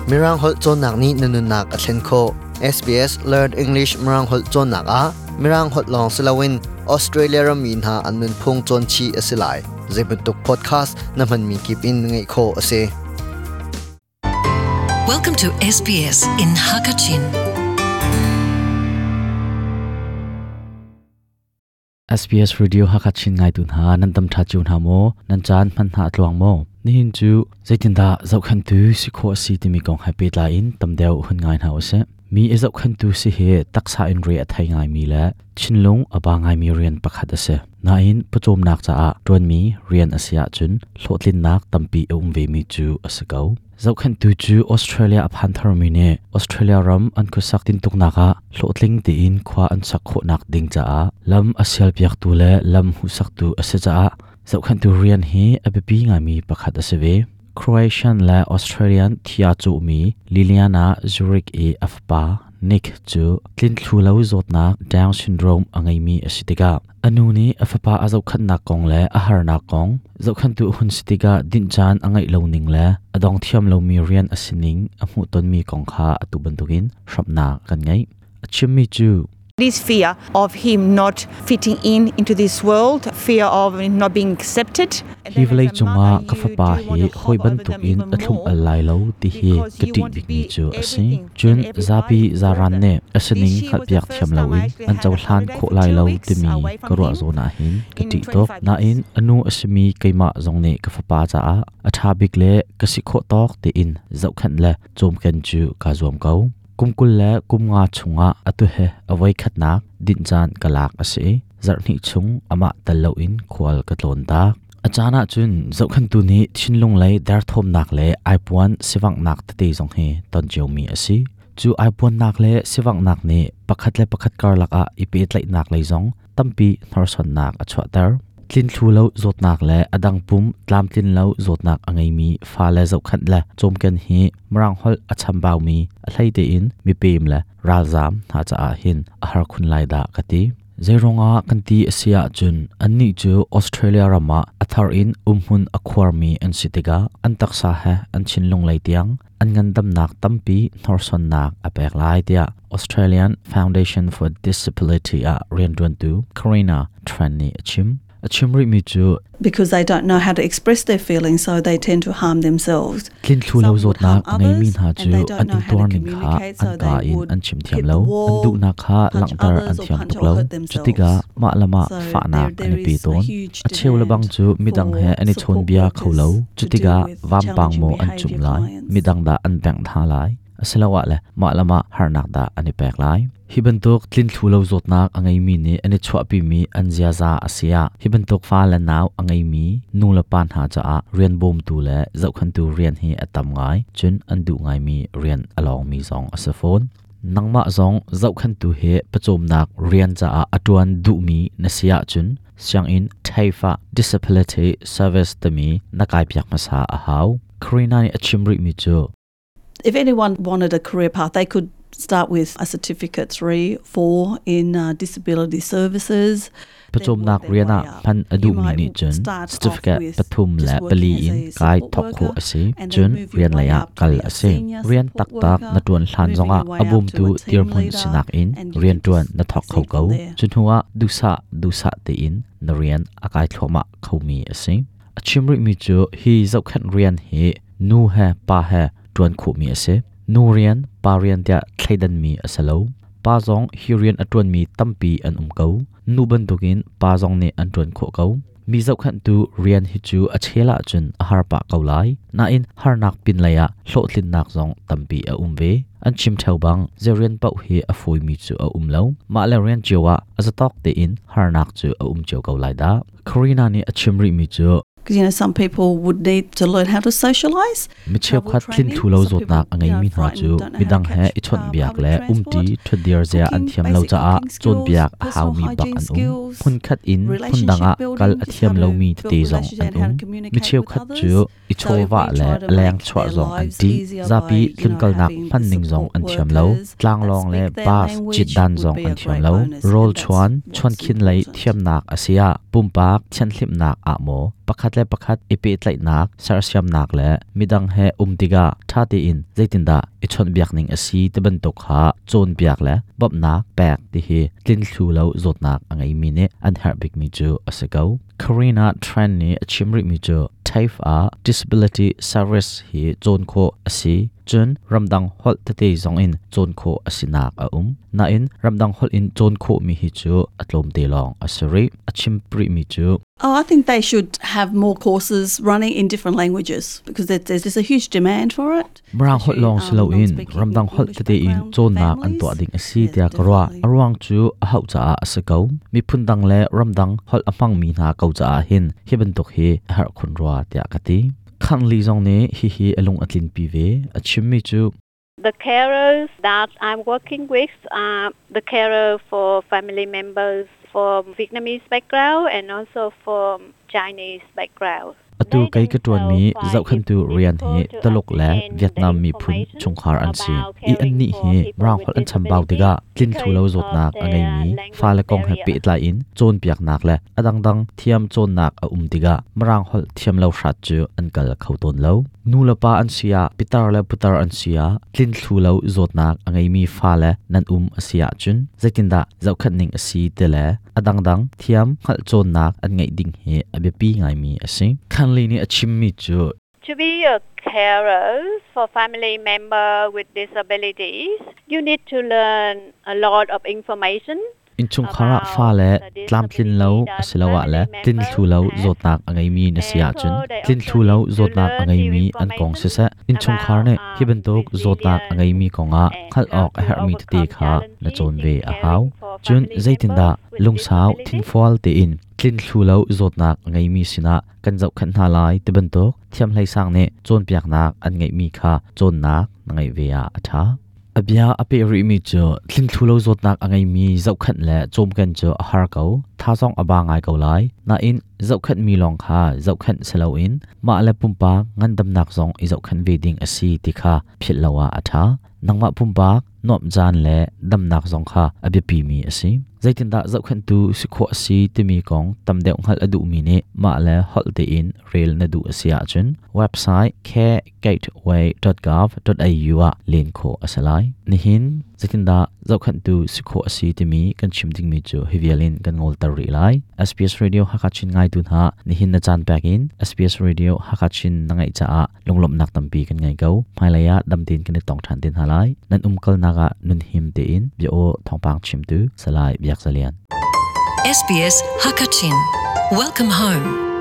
Mirang holh cawnnak nih na nunnak a thlen khawh. SBS Learn English Mirang holh cawnnak ah Mirang holh lawng si loin Australia rammi hna an nunphung cawn chih a si lai. Zeibantuk podcast na hmanmi kip in ngaih khawh a si. Welcome to SBS in Hakachin. SBS Radio Hakachin ngaitu hna nan dam ṭha cio hna maw? Nan caan hman hna a tluang maw? Nihin cu zeitindah zohkhenhtu si khawh a si timi kong he pehtlai in tam deuh hun ngai hna usih. Mi i zohkhenhtu si hi taksa in re a thei ngaimi le thinlung a ba ngaimi rian pakhat a si. Nain pawcawmnak caah ṭuanmi rian a si ahcun hlawhtlinnak tampi a um vemi cu a si ko. Zohkhenhtu cu Australia a phan tharmi nih Australia ram an khuasak tintuknak ah hlawhtling tein khua an sak khawhnak ding caah lam a sialpiaktu le lam hmuhsaktu a si caah zohkhenhtu rian hi a biapi ngaimi pakhat a si ve. Croatian le Australian thia cawhmi Liliana Zurich i a fapa Nick cu tlinthlu lo zawtnak Down syndrome a ngeimi a si tikah A nu nih a fapa a zohkhenhnak kong le a harnak kong, zohkhenhtu a hun si tikah dinh caan a ngeih lo ning le a dong thiam lomi rian a si ning a hmuhtonmi kong kha atu bantukin hramhnak kan ngeih. A chimmi cu This fear of him not fitting in into this world, fear of not being accepted. Hi vawlei cungah ka fapa hi hawi bantukin a thlum al lai lo ti hi ka ṭih bikmi cu a si. Cun zapi zaran nih a sining hngalhpiak thiam loin an cohlan khawh lai lo timi ka ruah zawn ah hin ka ṭih tuk. Nain a nu a simi keimah zong nih ka fapa caah a ṭha bik le ka si khawh tawk tein zohkhenh le cawmken cu kaa zuam ko. Kum 20 le kum nga chungah atu he a voikhatnak dinh caan ka lak a si i zarhhnih chung amah tel loin khual ka tlawn tak. A caan ahcun zohkhenhtu nih thinlung lei derthawmnak le aipuan sivanghnak tete zong hi ton ciomi a si. Cu aipuannak le sivanghnak nih pakhat le pakhat karlak ah i pehtlaihnak lei zong tampi hnorsuannak a chuahter. Tlinthlu lo zawtnak le a dang pum tlamtlin lo zawtnak a ngeimi fale zohkhenh le cawmken hi Mirang holh a chambaumi a hlei tein mipem le ralzaam hna caah hin a har khun lai dah ka ti. Zeiruangah kan ti a si ahcun annih cu Australia ram ah a thar in umhmun a khuarmi an si tikah an taksa he an thinlung lei tiang an ngandamnak tampi hnorsuannak a pek lai tiah Australian Foundation for Disability ah rianṭuantu Karina Tran nih a chim. A chim rihmi cu because they don't know how to express their feelings, so they tend to harm themselves. Tlinthlu lo zawtnak a ngeimi hna cu an intuar ning kha an kaa in an chim thiam lo, an duhnak kha langhter an thiam tuk lo. Cutikah mah le mah fahnak an i pe tawn. A cheu le bang cu midang he an i chawnbia kho lo. Cutikah vampang maw an cumh lai, midang dah an bengh hna lai. Asiloah le mah le mah harnak dah an i pek lai. Hi bantuk tlinthlu lo zawtnak a ngeimi nih an i chuahpimi an ziaza a si ah hi bantuk fa le nau a ngeimi nu le pa hna caah rian bawmtu le zohkhenhtu rian hi a tam ngai, cun an duh ngaimi rian a lawngmi zong a si fawn. Nangmah zong zohkhenhtu he pawcawmnak rian caah a ṭuan duhmi na si ahcun sianginn TAFE ah Disability Service timi na kaipiak hmasa a hau. Karina nih a chim rihmi cu If anyone wanted a career path, they could start with a certificate 3, 4 in disability services. Pawcawmnak rian ah hman a duhmi nih cun certificate pathum le pali in kai thawk khawh a si. Cun rian lei ah kal a si. Rian taktak na ṭuan hlan zongah a bawmtu dirhmun sinak in rian ṭuan na thawk kho ko. Cu hnuah duhsah duhsah tein na rian a kai thluahmah khomi a si. A chim rihmi cu hi zohkhenh rian hi nu he pa he ṭuan khawhmi a si. Nu rian, pa rian tiah thleidanmi a si lo. Pa zong hi rian a ṭuanmi tampi an um ko. Nu bantukin pa zong nih an ṭuan khawh ko. Mi zohkhenhtu rian hi cu a chel ahcun a har pah ko lai. Nain harnak pinlei ah hlawhtlinnak zong tampi a um ve. An chim ṭheo bang zei rian paoh hi a fawimi cu a um lo. Mah le rian cio ah a zatawk tein harnak cu a um cio ko lai dah. Karina nih a chim rihmi cu Because you know some people would need to learn how to socialize. Mi cheukhat tlinthlu lo zawtnak a ngeimi hna cu midang he i chawnhbiak le umṭi ṭhutdir zia an thiam lo caah cawnpiak a haumi bak an um. Hmunkhat in hmundang ah kal a thiam lomi tete zong an um. Mi cheukhat cu i chawvah le leng chuah zong an ṭih. Zapi tlunkalnak hmanning zong an thiam lo. Tlanglawng le bus cit dan zong an thiam lo. Rawl chuan, chuankhin lei thiamnak a si ah pumpak thianhhlimhnak ah maw Pakhat le pakhat i pehtlaihnak, sersiamnak le midang he um tikah ṭha tein zeitindah i chawnhbiak ning a si ti bantuk kha cawnpiak le bawmhnak pek ti hi tlinthlu lo zawtnak a ngeimi nih an herh bikmi cu a si ko. Karina Tran nih a chim rihmi cu TAFE ah Disability Service hi cawn khawh a si. Cun ramdang holh tete zong in cawn khawh a sinak a um. Nain ramdang holh in cawn khawhmi hi cu a tlawmte lawng a si rih. A chim rihmi cu Oh, I think they should have more courses running in different languages because there's a huge demand for it. Mirang holh lawng si loin ramdang holh tete in cawnnak an tuah ding a si tiah ka ruah. A ruang cu a hauh caah a si ko. Miphun dang le ramdang holh a hmangmi hna ko caah hin hi bantuk hi a herh khun rua tiah ka ti. Khanli zong nih hihi a lung a tlinpi ve. A chimmi cu The carers that I'm working with are the carer for family members from Vietnamese background and also from Chinese background. Atu kei ka ṭuanmi zohkhenhtu rian hi Tuluk le Vietnam miphun chungkhar an si i annih hi Mirang holh an chambau tikah tlinthlu lo zawtnak a ngeimi fale kong he pehtlai in cawnpiaknak le a dangdang thiam cawnnak a um tikah Mirang holh thiam lo hrat cu an kal kho tawn lo. Nulepa an si ah, pitar le putar an si ah tlinthlu lo zawtnak a ngeimi fale nan um a si ahcun zeitindah zohkhenh ning a si ti le a dangdang thiam hngalh cawnnak an ngeih ding hi a biapi ngaimi a si. Khanli nih a chimmi cu To be a carer for family member with disabilities, you need to learn a lot of information. Innchungkhar ah fale tlamtlin lo asiloah le tlinthlu lo zawtnak a ngeimi na si ahcun tlinthlu lo zawtnak a ngeimi an kong siseh, innchungkhar nih hi bantuk zawtnak a ngeimi kongah hngalh awk a herhmi tete kha na cawn ve a hau. Cun zeitindah lungsau thinfual tein tlinthlu lo zawtnak a ngeimi sinah kan zohkhenh hna lai ti bantuk thiamhleisang nih cawnpiaknak an ngeihmi kha cawnnak na ngeih ve ah a ṭha. A bia a peh rihmi cu tlinthlu lo zawtnak a ngeimi zohkhenh le cawmken cu a har ko, tha zong a ba ngai ko lai. Nain zohkhenhmi lawng kha zohkhenh si loin mah le pumpak ngandamnak zong i zohkhenh ve ding a si ti kha philh lo ah a ṭha. Nangmah pumpak nuamh caan le damnak zong kha a biapimi a si. Zeitindah zohkhenhtu si khawh a si timi kong tam deuh hngalh a duhmi nih mah le holh tein rel na duh a si ahcun website caregateway.gov.au ah len khawh a si lai. Nihin zeitindah zohkhenhtu si khawh a si timi kan chim dingmi cu hi vial in kan ngolter rih lai. SBS Radio Hakha Chin ngaitu hna nihin na caan pek in SBS Radio Hakha Chin na ngaih caah lunglawmhnak tampi kan ngei ko. Hmailei ah dam tein kan i tong ṭhan te hna lai. Nan umkalnak ah nun him tein bia aw thawngpang chimtu Salai Biak Zalian. SBS Hakachin. Welcome home.